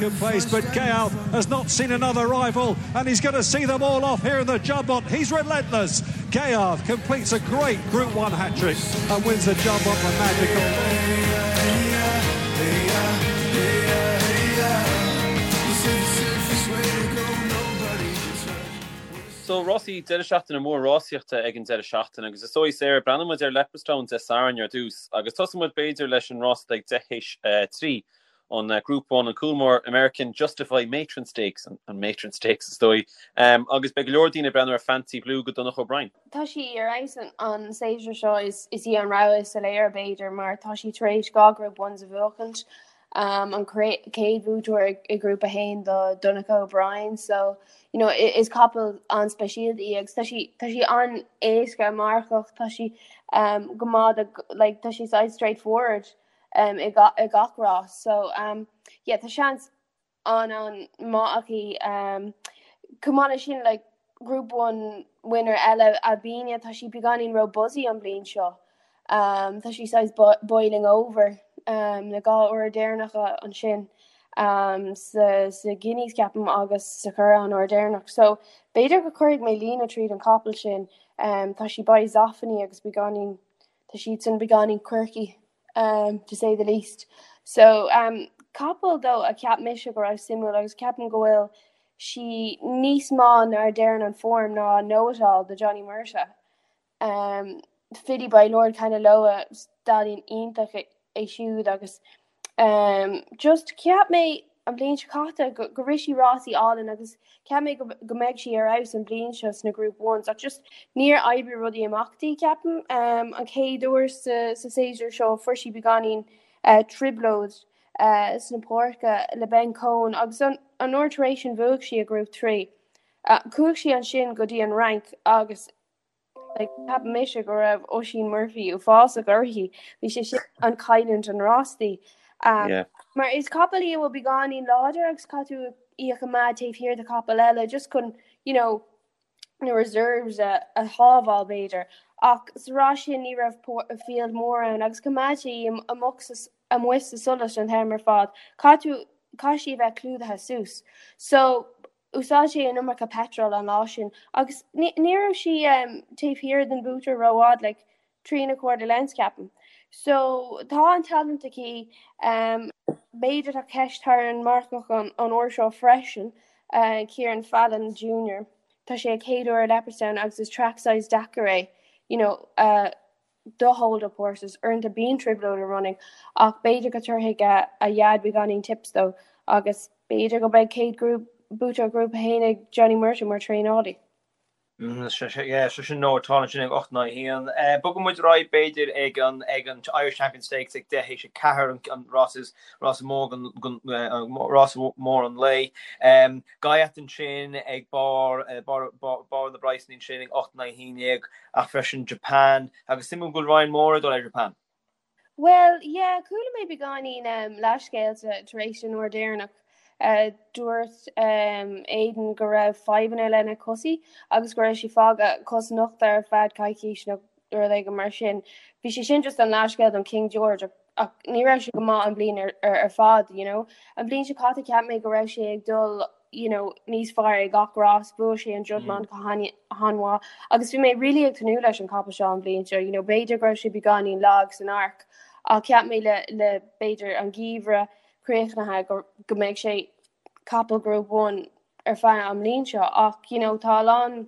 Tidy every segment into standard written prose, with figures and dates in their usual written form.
second place, but Ghaiyyath has not seen another rival and he's going to see them all off here in the Jumbot. He's relentless. Ghaiyyath completes a great Group 1 hat-trick and wins the Jumbot for Magical. So, rásaí, deireadh seachtaine mór rásaíochta ag an deireadh seachtaine agus is dóigh, Sarah, breathnóidh muid ar Leopardstown Dé Sathairn ar dtús agus tosóidh muid b'fhéidir leis an rás ag 10 théis 3, an Group 1, an Coolmore American Justify Matron Stakes, an Matron Stakes is dóigh, agus beidh go leor daoine ag breathnú ar Fancy Blue do Donnacha O'Brien. Tá sí ar fheabhas an séasúr seo, is í an rogha is soiléire b'fhéidir mar tá sí tar éis 2 Group 1s a bhuachaint. An chéad bhuaiteoir i nGrúpa 1 do Donnacha O'Brien so you know is capall an-speisialta í agus tá sí tá sí an-éasca marcach tá sí um, go maith like tá sí saghas straightforward um, i, ga, i gach rás so um, yeah, tá seans an-an-maith aici. Chomh maith leis sin like Group 1 winner eile Albigna tá sí beagáinín ró buzzy an bhliain seo. Tá sí saghas boiling over na 2 uair deireanacha ansin sa sa Guineas ceapaim agus sa Churrach an uair deireanach. So b'fhéidir go cuirfidh mé líne tríd an capall sin. Tá sí by Zoffany agus beagáinín tá siadsan beagáinín quirky. to say the least. So capall though a cheap mise go raibh suimiúil agus ceapaim go bhfuil sí níos maith ná a deireann an form ná Know It All do Johnny Murtagh. Um, Filly by Lord Kanaloa stallion iontach é siúd agus um, just cheap mé an bhliain seo caite go, go rith sí rásaí álainn agus cheap mé go, go mbeidh sí ar fheabhas an bhliain seo sna Group Ones ach just níor oibrigh rudaí amach di ceapaim. Um, an chéad uair sa, sa séasúr seo fuair sí beagáinín uh, trioblóid uh, sna páirce le Ben Coen agus an, an uair tar éis sin bhuaigh sí i Group 3. Uh, chuaigh sí ansin go dtí an Fhrainc agus Like, cheap mise go raibh Oisín Murphy uafásach uirthi. Bhí sé sin an cailliúint an rás di. Um, Yeah. Mar is capall í a bhfuil beagáinín láidir agus caithfidh tú í a choimeád taobh thiar de chapall eile just chun, you know, na reserves a, a shábháil b'fhéidir. Ach sa rás sin ní raibh field mór ann agus choimeád sé í amuigh sa, amuigh sa solas an t-am ar fad. Caithfidh tú, caithfidh sí a bheith clúdaithe suas. So, Úsáid sé an iomarca petrol an lá sin agus ní raibh sí taobh thiar den bhuaiteoir rófhad, like 3.25 lengths ceapaim. So tá an talent aici, b'fhéidir tá ceist thar an marcach an uair seo freisin, Ciaran Fallon Junior. Tá sé a chéad uair i Leopardstown agus is track saghas deacair é, you know, do hold up horses. Uaireanta bíonn trioblóid i running ach b'fhéidir go dtabharfaidh a dhaid beagáinín tips dó agus b'fhéidir go mbeidh céad grúp buaiteoir Grúpa 1 ag Johnny Murtagh mar traenálaí. Yeah, so sin Know It All ansin ag 8 in aghaidh 1. Bogfaidh muid ar aghaidh b'fhéidir ag an ag an Irish Champion Stakes ag 10 théis 4 an rás is rás mór an rás mór an lae. Ghaiyyath ansin ag barr barr barr na bpraghsanna ansin ag 8 in aghaidh 11 ach freisin Japan agus suimiúil go bhfuil Ryan Moore ag dul ar Japan. Bhuel, yeah, chuala mé beagáinín um, leathscéalta tar éis an uair deireanach. Uh, dúirt um, Aidan go raibh fadhbanna lena cosaí agus go raibh sé fágtha cos nochta ar feadh coicís nó rud éigin mar sin. Bhí sé sin just an leathscéal don King George ach ní raibh sé go maith an bhliain ar, ar, ar fad, you know. An bhliain seo caite cheap mé go raibh sé ag dul you know, níos fearr ag gach rás, bhuaigh sé an Juddmonte go han-mhaith agus bhí mé really ag tnúth leis an capall seo an bhliain seo, you know, b'fhéidir go raibh sé beagáinín lag san Arc ach cheap mé le, le b'fhéidir an geimhreadh críochnaithe go, go mbeidh sé capall Group 1 ar feadh an bhliain seo ach you know, tá a lán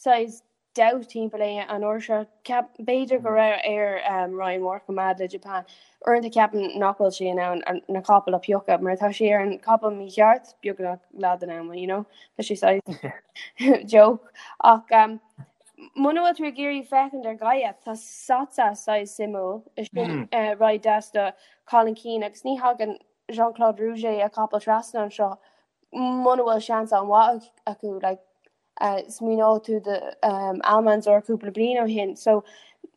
saghas doubt timpeall é an uair seo. Ceap, b'fhéidir go raibh air Ryan Moore coimeád le Japan. Uaireanta ceapaim nach bhfuil sé in ann na capaill a phiocadh mar tá sé ar an capall mícheart beagnach leath den am, you know? Tá sé saghas joke. Ach um, muna bhfuil tú ag iarraidh féachaint ar Ghaiyyath, tá Sottsass saghas suimiúil. Is sin uh, ride deas do Colin Keane agus ní thagann Jean-Claude Rouget a capall trasna anseo muna bhfuil seans an-mhaith acu like, Smaoineoidh tú de Almanzor cúpla bliain ó shin. So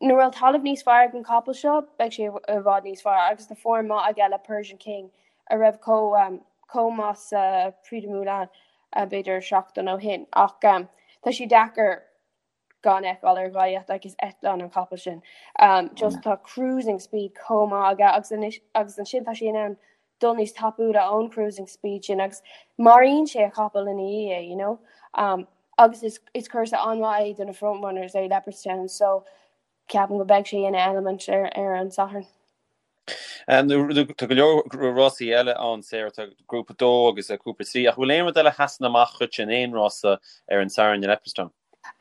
nuair a bhfuil talamh níos fearr ag an capall seo, beidh sé i bhfad níos fearr agus tá form maith aige le Persian King a raibh chomh chomh maith sa Prix du Moulin b'fhéidir seachtain ó shin. Ach tá sé deacair gan fheiceáil ar Ghaiyyath like is eitleán an capall sin. Just tá cruising speed chomh maith aige agus anois agus ansin tá sé in ann. dul níos tapúla ón cruising speed sin agus maraíonn sé a chapall ina dhiaidh é, you know. Um, agus is, is cúrsa an-mhaith é do na frontrunners é Leopardstown, so ceapaim go mbeidh sé ina element ar, ar an Satharn. Tá go leor rásaí eile ann, Sarah, tá grúpa 2 agus grúpa 3, ach bhfuil aon rud eile a sheasann amach dhuit in aon rása ar an Satharn i Leopardstown?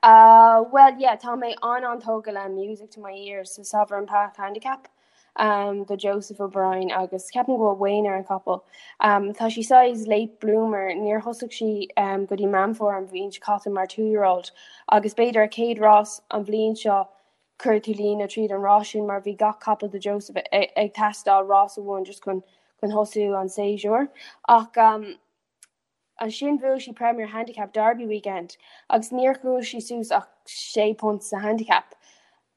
Uh, well, yeah, tá mé an-an-tógtha le Music to My Ears sa Sovereign Path Handicap um, do Joseph O'Brien agus ceapaim go bhfuil Wayne ar an capall. Um, tá sí saghas late bloomer, níor thosaigh sí um, go dtí Meán Fómhair an bhliain seo caite mar two-year-old agus b'fhéidir a céad rás an bhliain seo chuir tú líne tríd an rás sin mar bhí gach capall do Joseph ag teastáil rás amháin just chun chun thosú an séasúr. Ach um, ansin bhuaigh sí Premier Handicap Derby Weekend agus níor chuaigh sí suas ach sé punt sa handicap.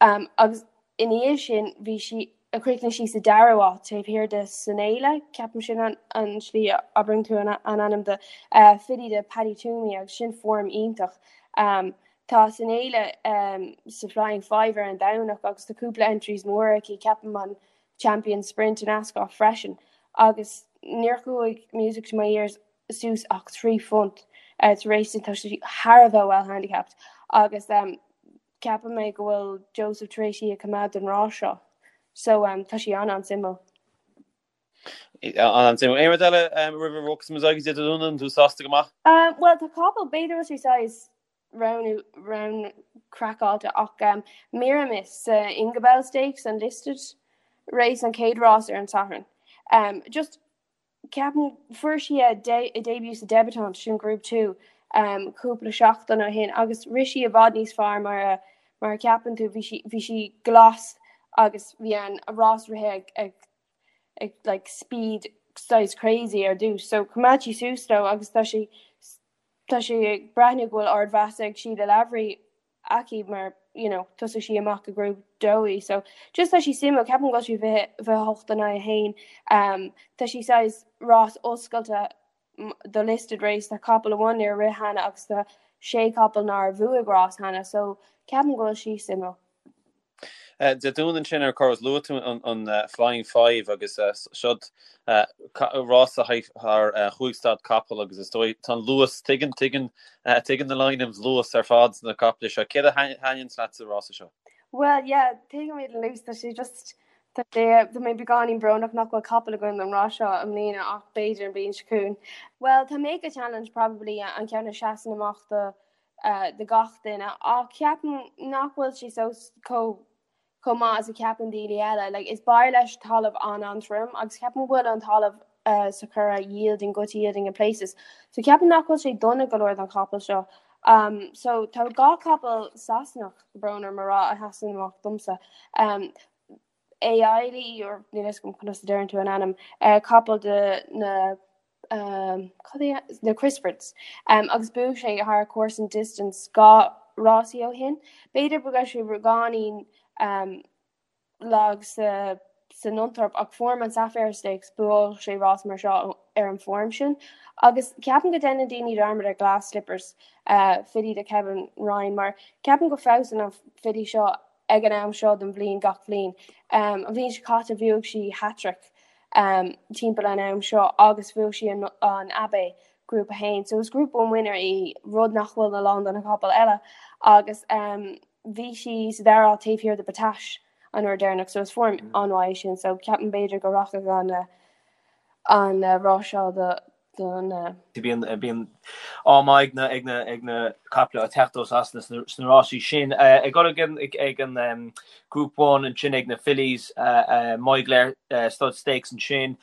Um, agus ina dhiaidh sin bhí sí a chríochnaigh sí sa dara háit taobh thiar de Sanela, ceapaim sin an, an slí a abraíonn tú an, an ainm de uh, filly de Paddy Twomey agus sin form iontach. Um, Tá Sanela sa Flying Five ar an Domhnach agus tá cúpla entries móra aici, ceapaim an Champion Sprint in Ascot freisin agus níor chuaigh Music to My Ears suas ach £3 tar éis sin, tá sí thar a bheith well handicapped agus ceapaim mé go bhfuil Joseph tar éis í a choimeád don rás seo so tá sí an-an-suimiúil. An-an-suimiúil. Aon rud eile roimh a bhogfas muid go dtí Dé Domhnaigh, an tú sásta go maith? Bhuel tá capall, b'fhéidir bhfuil sé saghas roghnú roghnú craiceáilte ach Miramis sa Ingabelle Stakes an listed race an chéad rás ar an Satharn. Um, just ceapaim fuair sí a, de, a debut sa Debutante sin Group 2 um, cúpla seachtain ó shin agus rith sí i bhfad níos fearr mar a, mar a ceapann tú bhí sí, bhí sí glas agus bhí an rás rite ag, ag, ag like, speed saghas crazy ar dtús so choimeád sí suas leo agus tá sí Tá sé ag breathnú go bhfuil ardmheas ag Síle Lavery aici mar you know thosaigh sí amach i Group 2 í so just tá sí suimiúil ceapaim go bhfuil sí 28 in aghaidh 1 um, tá sí saghas rás oscailte do listed race tá capall amháin nár rith cheana agus tá sé capall nár bhuaigh rás cheana so ceapaim go bhfuil sí suimiúil. Dé Domhnaigh ansin ar Cora luaigh tú an Flying Five agus seod rása thar chúig staid capall agus is dóigh tá an luas tuigeann tuigeann tuigeann na Lynams luas ar fad sna caiple seo. Céard a thaitníonn leat sa rása seo? Well yeah, tuigimid an luas tá sé just tá sé tá mé beagáinín brónach nach bhfuil capall againn don rás seo i mbliana ach b'fhéidir an bhliain seo chugainn. Well tá Make a Challenge probably an ceann a seasann amach do do gach duine ach ceapaim nach bhfuil sé so chomh chomh maith is a cheapann daoine eile. Like, is b'fhearr leis talamh an-an-trom agus ceapaim go bhfuil an talamh uh, sa Churrach yielding, good yielding in places. So ceapaim nach bhfuil sé dona go leor don chapall seo. Um, so tá dhá capall Sasanach brón orm a rá a sheasann amach domsa. Um, Ailey or níl a fhios agam conas a deireann tú an ainm, uh, capall de na um, cad é na Crisfords um, agus bhuaigh sé thar course and distance dhá rásaí ó shin. B'fhéidir go raibh sé beagáinín um, lag sa sa Nunthorpe ach form an Sapphire Stakes bhuaigh sé rás mar seo ar an form sin. Agus ceapaim go déanann daoine dearmad ar Glass Slippers uh, filly de Kevin Ryan mar ceapaim go feabhsann an filly seo ag an am seo den bhliain gach bhliain. Um, an bhliain seo caite bhuaigh sí hat-trick um, timpeall an am seo agus bhuaigh sí an, an Abbey Group 1. So is Group 1 winner í rud nach bhfuil a lán de na capaill eile agus um, bhí sí sa dara háit taobh thiar de Battaash an uair deireanach so is form mm. an-mhaith sin so ceapaim b'fhéidir go rachadh an an uh, rás seo do don Bíonn bíonn ádh maith ag na ag na ag na caiple ag teacht ó Sasana sna sna rásaí sin. Ag dul ag an ag an Group 1 ansin ag na Fillies Moyglare Stud Stakes ansin.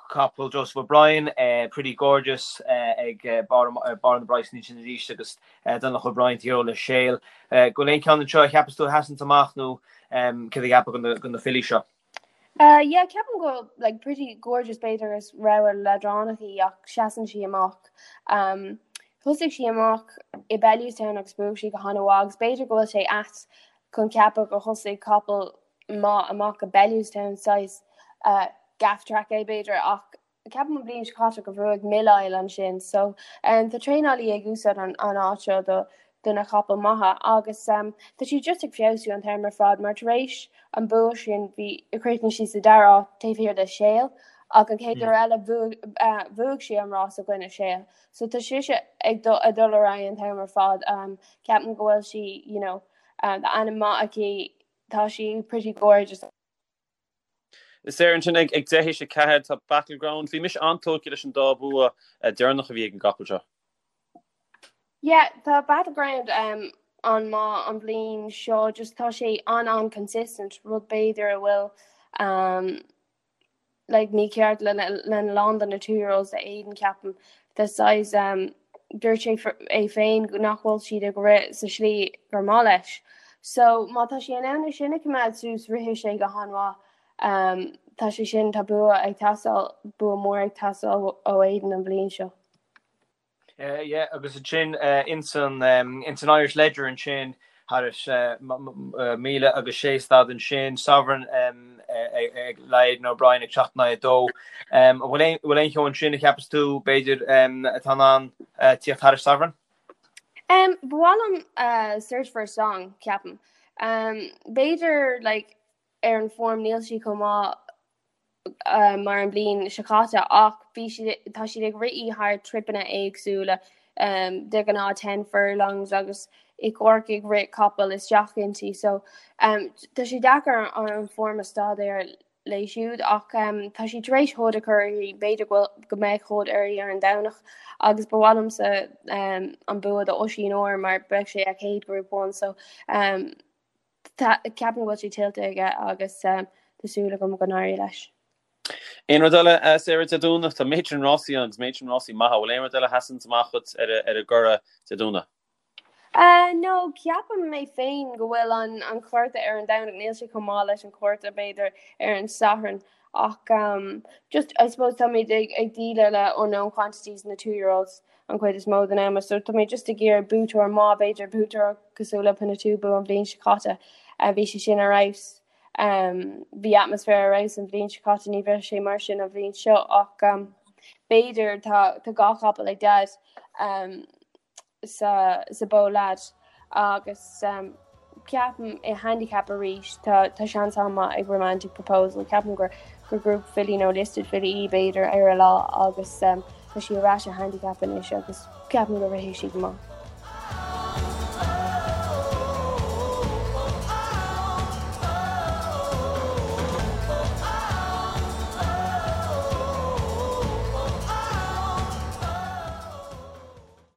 Capall Joseph O'Brien, Pretty Gorgeous ag barr barr na bpraghsanna ansin arís agus Donogh O'Brien taobh thiar le Sale. Go bhfuil aon ceann anseo a cheapas tú a sheasann amach nó céard a cheapfá de na fillies seo? Uh, yeah, ceapaim go like pretty gorgeous b'fhéidir is rogha leadránach í ach seasann sí amach. Um, thosaigh sí amach i Bellewstown agus bhuaigh sí go han-mhaith agus b'fhéidir go bhfuil sé ait chun ceapadh gur thosaigh capall maith amach i Bellewstown saghas uh, gaff track é b'fhéidir ach Ceapaim an bhliain seo caite go bhuaigh Millisle ansin so tá traenálaí ag úsáid an áit seo do do na capaill maithe agus tá sí just ag feabhsú an t-am ar fad mar tar éis an bua sin bhí chríochnaigh sí sa dara háit taobh thiar de Sale. Ach an chéad uair eile bhuaigh sí an rás i gcoinne Sale. So tá sise ag dul ar aghaidh an t-am ar fad. Ceapaim go bhfuil sí, you know, tá ainm maith aici, tá sí pretty gorgeous. Sarah ansin ag 10 théis 4 tá Battleground. Bhí mise an-tógtha leis an dá bhua deireanach a bhí ag an gcapall seo. Yeah, tá Battleground um, an-mhaith an bhliain seo, just tá sé an-an-consistent, rud b'fhéidir a bhfuil um, like ní ceart le lena lán de na two year olds a Aidan ceapaim. Tá saghas um, dúirt sé é féin nach bhfuil siad ag rith sa slí gur maith leis. So má tá sé in ann é sin a choimeád suas rithfidh sé go han-mhaith. Um, tá sé sin tá bua ag teastáil bua mór ag teastáil ó Aidan an bhliain seo. Yeah, agus ansin ins an ins an Irish Leger ansin thairis 1000 agus 6 staid ansin, Sovereign ag le Aidan O'Brien ag 7 in aghaidh 2. An bhfuil aon bhfuil aon cheann ansin a cheapas tú b'fhéidir atá in ann tíocht thairis Sovereign? Um, ba mhaith liom uh, Search for a Song, ceapaim. Um, b'fhéidir like, ar an form níl sí chomh maith mar an bhliain seo caite ach bhí siad tá siad ag rith í thar tripeanna éagsúla de ghnáth 10 furlongs agus i gCorcaigh rith capall isteach inti so tá sé deacair an form a staidéar léi siúd ach tá sí tar éis hood a chur uirthi b'fhéidir go bhfuil go mbeidh hood uirthi ar an Domhnach agus ba mhaith liomsa an bua do Oisín Orr mar beidh sé a chéad Group 1 so Ceapaim go bhfuil sé tuillte aige agus tá súil agam go n-éireoidh leis. Aon rud eile, Sarah, Dé Domhnaigh? Tá méid sin rásaí ann agus méid sin rásaí maithe. Bhfuil aon rud eile a sheasanns amach dhuit ar an gcuradh Dé Domhnaigh? No, ceapaim mé féin go bhfuil an cárta ar an Domhnach, níl sé chomh maith leis an cárta b'fhéidir ar an Satharn ach just I suppose táimid ag déileáil le unknown quantities na two year olds an chuid is mó den am so tá mé just ag iarraidh buaiteoir maith, b'fhéidir buaiteoir cosúil le Pinatubo an bhliain seo caite. Bhí sé sin ar fheabhas. Bhí atmaisféar ar fheabhas an bhliain seo caite, ní bheidh sé mar sin an bhliain seo ach b'fhéidir tá tá dhá chapall ag Daid sa sa Bow Lad agus ceapaim i handicap arís tá tá seans an-mhaith ag Romantic Proposal. Ceapaim gur gur group filly nó listed filly í b'fhéidir ar a lá agus tá sí ar ais i handicap anois agus ceapaim go rithfidh sí go maith.